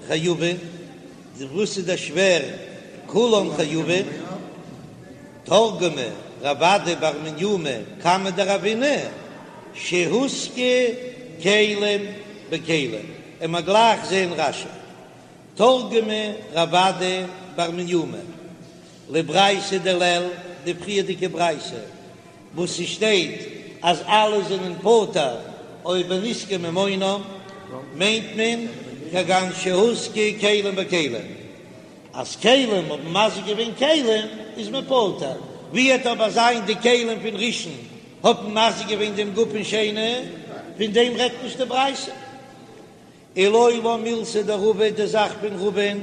חייבין, וואס איז דער שווער כולן חייבין? תרגמה רב אדא בר מניומי קמיה דרבינא שהוזקו כלים בכלים, און מ'עט גלייך זעהן רש"י תרגמה רב אדא בר מניומי לברייתא דלעיל, די פריערדיגע ברייתא וואס ס'שטייט אז אלע זענען פטור אויב בנזקי ממונם, מיינט מען כגון שהוזקו כלים בכלים, אז כלים האבן מזיק געווען כלים איז מען פטור, ווי וועט אבער זיין די כלים פון ראשון האבן מזיק געווען דעם גוף פון שני, פון דעם רעדט נישט די ברייתא. ולעולם מילתא דרבא די זאך פון רבא'ן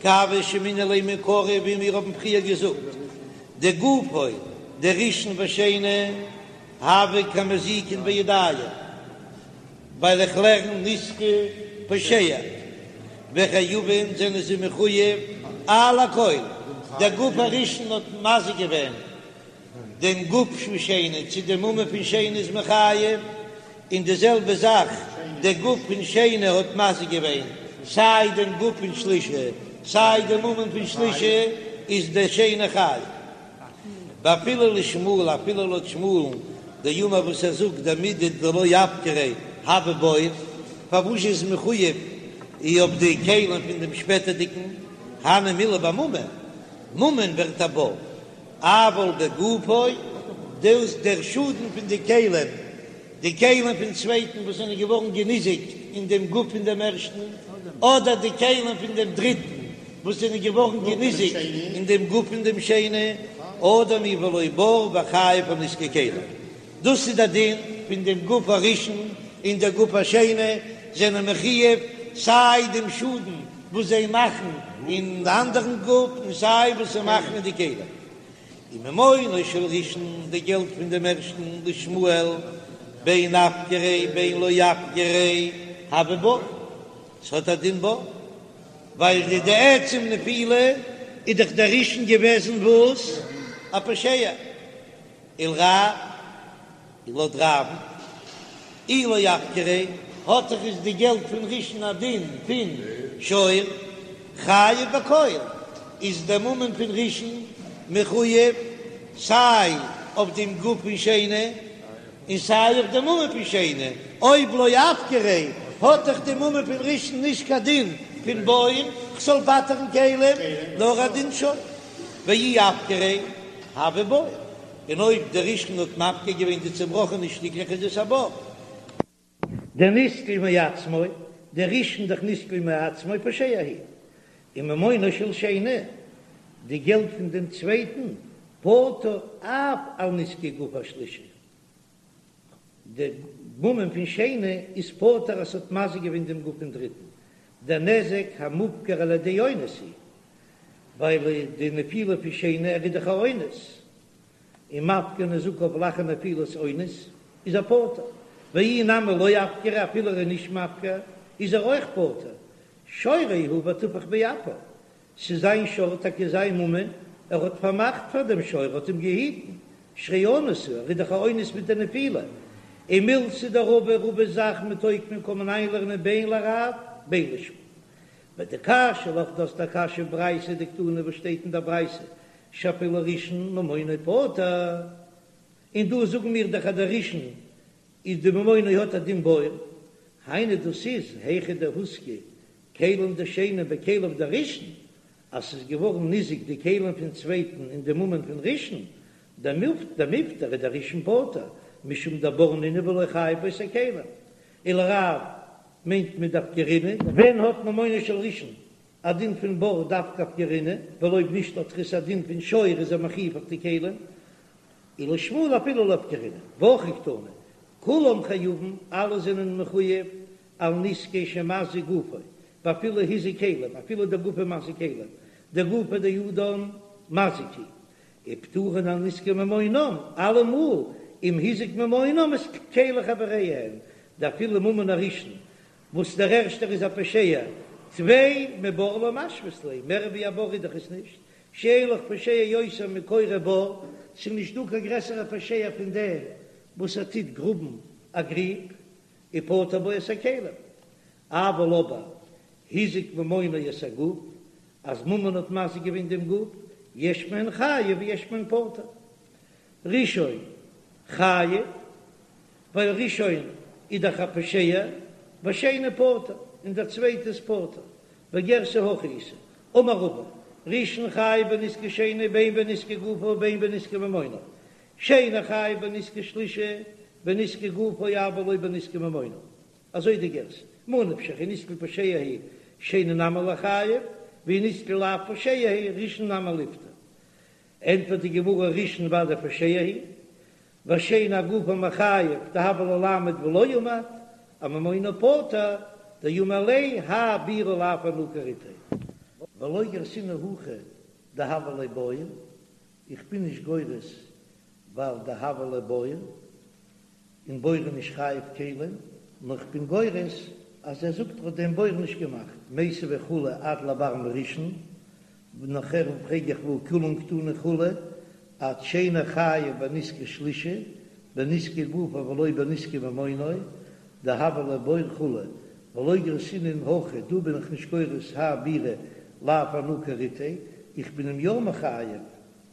כי הוה שמעינן ליה מעיקרא ווי מיר האבן פריער געזאגט דגופו דראשון ושני הוה כמזיקין בידים ווייל איך לערן נתקל פושע וחייבין זענען זיי מחויב על הכל דער גוף הראשון האט מזיק געווען דעם גוף פון שני צו די ממון פון שני איז מען חייב, און די זעלבע זאך דער גוף פון שני האט מזיק געווען סיי דעם גוף פון שלישי סיי דעם ממון פון שלישי איז דער שני חייב. ואפילו לשמואל אפילו לויט שמואל'ן דאמר וואס ער זאגט דמידי דלא אפקריה הוי בור, פארוואס איז מחויב אויף די כלים פון דעם שפעטערדיגן הני מילי בממון, ממון ווערט א בור. אבל בגופו, דאס דער שאדן פון די כלים, די כלים פון צווייטן וואס זענען געווארן געניזיקט אין דעם גוף פון דעם ערשטן, אדער די כלים פון דעם דריטן וואס זענען געווארן געניזיקט אין דעם גוף פון דעם שני, אדם הוא ולא בור וחייב על נזקי כלים. דאס איז דער דין פון דעם גוף הראשון און דער גוף השני זענען מחויב סיי דעם שאדן וואס זיי מאכן אין אנדערן גוף און סיי וואס זיי מאכן אין די כלים. וממונו של ראשון, די געלט פון דעם ערשטן לשמואל בין אפקריה בין לא אפקריה הוי בור, ס'האט א דין בור, ווייל די די עצם נפילה איז דאך דער ראשון געוועזן וואס? א פושע. ולרב, און לויט רב'ן, אי לא אפקריה, האט דאך איז די געלט פון ראשון א דין פון שור, חייב בכל, איז דער ממון פון ראשון מחויב. סיי אויף דעם גוף פון שני און סיי אויף די ממון פון שני, אויב לא אפקריה האט דאך די ממון פון ראשון נישט קיין דין פון בור כ'זאל פטר'ן כלים, נאר א דין שור, ואי אפקריה הוי בור, און אויב דער ראשון האט מפקיר געווען די צובראכענע שטיקלעך איז עס א בור. דנסקל מעצמו, דער ראשון דאך נסקל מעצמו פושע הוא, וממונו של שני, די געלט פון דעם צווייטן, פטור אף על נזקי גוף השלישי, די ממון פון שני איז פטור אז ס'האט מזיק געווען דעם גוף פון דריטן, דער נזק המופקר על ידי אונס הוא, ווייל די נפילה פון שני ער איז דאך א אונס, און מפקיר נזקיו לאחר נפילת אונס איז ער פטור, ואי נמי לא אפקריה אפילו ער איז נישט מפקיר איז ער אויך פטור, שורו הוא וטפח באפיו, ס'איז זיין שור טאקע זיין ממון, ער האט פארמאכט פאר דעם שור, ער האט אים געהיטן, שהרי אנוס הוא, ער איז דאך א אונס מיט די נפילה, ומילתא דרבא רבא'ס זאך מתוקמא קען מען איינלערנען בין לרב בין לשמואל. ודקשיא לך דו האסט א קשיא ברייתא דקתני וואס שטייט אין דער ברייתא שאפילו ראשון ממונו פטור, און דא זאגן מיר דאך אז דער ראשון איז די ממונו האט א דין בור, היינו דאס איז היכא דהוזקו כלים דשני בכליו דראשון, אז ס'איז געווארן ניזוק די כלים פון צווייטן אין די ממון פון ראשון, דמיפטר איז דער ראשון פטור, משום דבור נינהו ולא חייב בו את הכלים, ולרב מיינט מען דאפקרינהו. ווען האט ממונו של ראשון א דין פון בור דווקא אפקרינהו, ווייל אויב נישט האט עס א דין פון שור איז ער מחויב אויף די כלים, ולשמואל אפילו לא אפקרינהו, והכי קתני, כולם חייבים, אלע זענען מחויב על נזקי שמזיק גופו, ואפילו הזיק כלים, אפילו דער גוף איז מזיק כלים, דגופא דאדם מזיק הוא, ופטורין על נזקי ממונם, אלעמאל אם הזיק ממונם את כלי חבריהם, דאפילו ממון הראשון, וואס דער ערשטער איז א פושע, טפי מבור לא משוית ליה, מער ווי א בור איז דאך עס נישט, שאין לך פושע יותר מכורה בור, ס'איז נישט דא קיין גרעסערע פושע פון דעם וואס ער טוט גראבן א גריב, ופטר בו את הכלים, אבל אבער הזיק ממונו את הגוף, אז ממון האט מזיק געווען דעם גוף, יש מהן חייב ויש מהן פטור. ראשון חייב, ווייל ראשון איז דאך א פושע, ושני פטור, און דער צווייטע איז פטור, וגירסא הכי איתא, אמר רבא, ראשון חייב בנזקי שני בין בנזקי גופו ובין בנזקי ממונו, שני חייב בנזקי שלישי בנזקי גופו אבל לא בנזקי ממונו, אזוי די גירסא, ממה נפשך אי נתקל פושע הוא שני נמי ליחייב, ואי נתקל לאו פושע הוא ראשון נמי ליפטר. ענטפערט די גמרא ראשון ודאי פושע הוא, והשני אגופו מיחייב דהוה ליה לעמוד ולא עמד, אממונו פטור דאמר ליה האי בירא לאו אנא כריתיה. ולא גרסינן הכא דהוה ליה בור, איך בין נישט גורס ווייל דהוה ליה בור, און בור איז נישט חייב כלים, נאר איך בין גורס אז ער זאגט ער האט דעם בור נישט געמאכט, מיתיבי כו' עד לבר מראשון, נאכער פרעג איך והא כולן קתני כו' עד שני חייב בנזקי שלישי, בנזקי גופו ולא בנזקי ממונו, דהוה ליה בור כו', ולא גרסינן הכא, דא בין איך נישט גורס האי בירא לאו אנא כריתיה, איך בין אים יא מחייב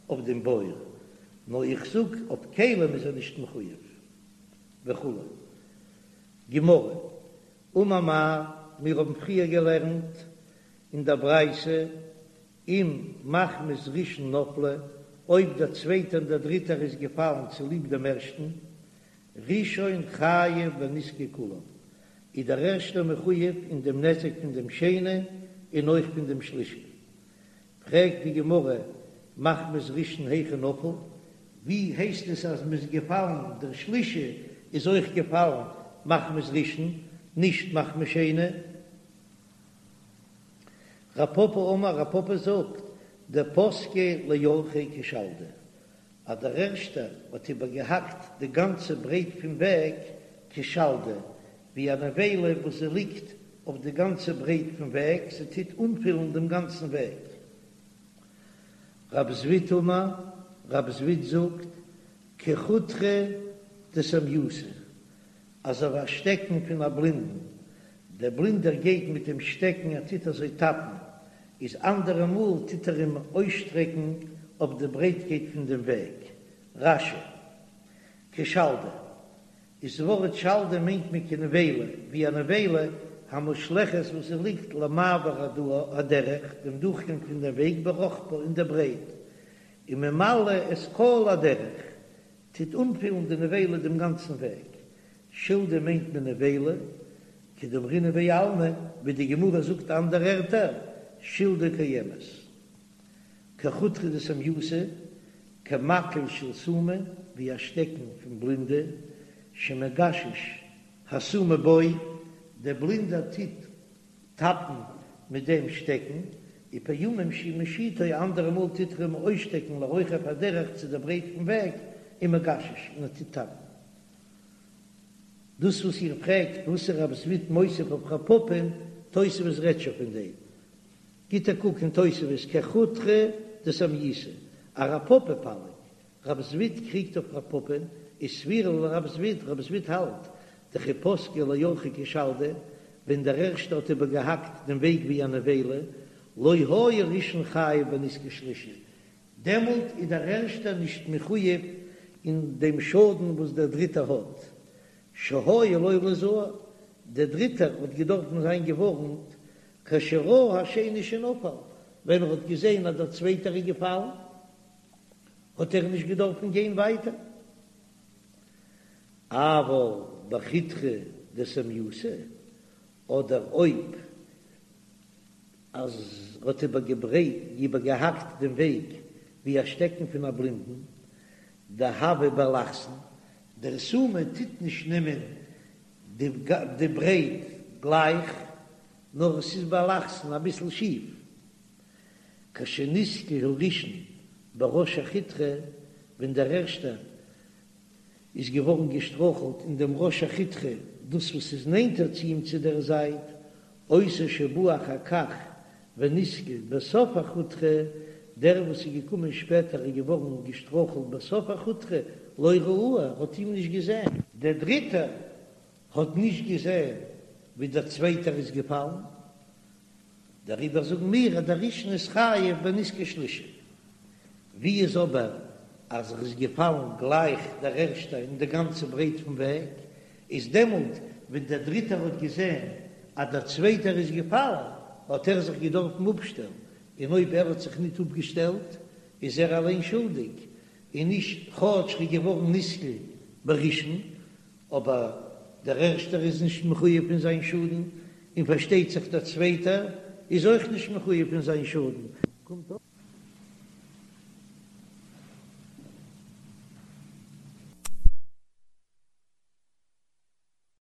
אויף דעם בור, נאר איך זאג אויף כלים איז ער נישט מחויב וכו'. גמרא, אמר מר, מיר האבן פריער געלערנט אין דער ברייתא, אם מחמת ראשון נפלו, אויב דער צווייטער און דער דריטער איז געפאלן צוליב דעם ערשטן, ראשון חייב בנזקי כולם, איז דער ערשטער מחויב אין דעם נזק פון דעם שני און אויך פון דעם שלישי. פרעגט די גמרא, מחמת ראשון היכי נפול, ווי הייסט עס אז מ'איז געפאלן, דער שלישי איז אויך געפאלן מחמת ראשון, נישט מחמת שני? רב פפא אמר, רב פפא זאגט, דפסקיה לאורכיה כשלדא, אז דער ערשטער האט איבערגעהאקט די גאנצע ברייט פון וועג כשלדא, ווי א נבילה וואס זי ליגט אויף די גאנצע ברייט פון וועג, זי טוט אנפילן דעם גאנצן וועג. רב זביד אמר, רב זביד זאגט, כחוטרא דסמיותא, אזוי ווי א שטעקן פון א בלינדן, דער בלינדער גייט מיט דעם שטעקן ער טוט אזוי טאפן, איז אנדערע מאל טוט ער אים אויסשטרעקן אויף די ברייטקייט פון דעם וועג. רש"י, כשלדא, איז ווארט שלדא מיינט מען כנבילה, ווי א נבילה המושלכת וואס זי ליגט למעבר הדרך, דעם דורכגאנג פון דעם וועג ברחבה אין דער ברייט, וממלאה את כל הדרך, טוט אנפילן די נבילה דעם גאנצן וועג. שלדא מיינט מען נבילה, כדאמרינן בעלמא, ווי די גמרא זאגט אנדערע ערטער, שלדא קיימת. כחוטרא דסומייתא, כמקל של סומא, ווי א שטעקן פון בלינדע, שמגשש הסומא בו, דער בלינדער טוט טאפן מיט דעם שטעקן, ופעמים שהוא משיטו, אנדערע מאל טוט ער אים אויסשטעקן לרוחב הדרך צו דער ברייט פון וועג, ומגשש, און ער טוט טאפן. דאס וואס איר פרעגט וואס איז רב זביד מוסיף אויף רב פפא'ן, תוספות רעדט שוין פון דעם. גיט א קוק אין תוספות כחוטרא דסומייתא, ארב פפא פליג, רב זביד קריגט אויף רב פפא'ן, איז סבירא ליה לרב זביד, רב זביד האלט, דכי פסקה לאורחיה כשלדא, ווען דער ערשטער האט איבערגעהאקט דעם וועג ווי א נבילה, לא היה ראשון חייב בנזקי שלישי, דעמאלט איז דער ערשטער נישט מחויב אין דעם שאדן וואס דער דריטער האט, שהיה לו ליזהר, דער דריטער האט געדארפן זיין געווארנט, כשראה השני שנפל, ווען ער האט געזען אז דער צווייטער איז געפאלן, האט ער נישט געדארפן גיין ווייטער. אבל בחוטרא דסומייתא, אדער אויב אז ער האט איבערגעהאקט דעם וועג ווי א שטעקן פון א בלינדן, דהוה באלכסון, דער סומא טוט נישט נעמען די ברייט גלייך, נאר עס איז באלכסון אביסל שיף. כשנתקל הראשון בראש החוטרא, ווען דער ערשטער איז געווארן געשטראכלט אין דעם ראש החוטרא, דאס וואס איז נענטער צו אים צו דער זייט, אותו שבא אחר כך ונתקל בסוף החוטרא, דער וואס איז געקומען שפעטער איז געווארן געשטראכלט בסוף החוטרא, לא ראהו, האט אים נישט געזען. דער דריטער האט נישט געזען ווי דער צווייטער איז געפאלן, דעריבער זאגן מיר אז דער ראשון איז חייב בנזקי שלישי. ווי איז אבער אז ער איז געפאלן גלייך דער ערשטער אין די גאנצע ברייט פון וועג, איז דעמאלט ווען דער דריטער האט געזען אז דער צווייטער איז געפאלן האט ער זיך געדארפן אפשטעלן, און אויב ער האט זיך ניט אפגעשטעלט איז ער אליין שולדיג, און נישט כאטש ער איז געווארן נתקל בראשון, אבער דער ערשטער איז נישט מחויב פון זיין שאדן, און פארשטייט זיך דער צווייטער איז אויך נישט מחויב פון זיין שאדן.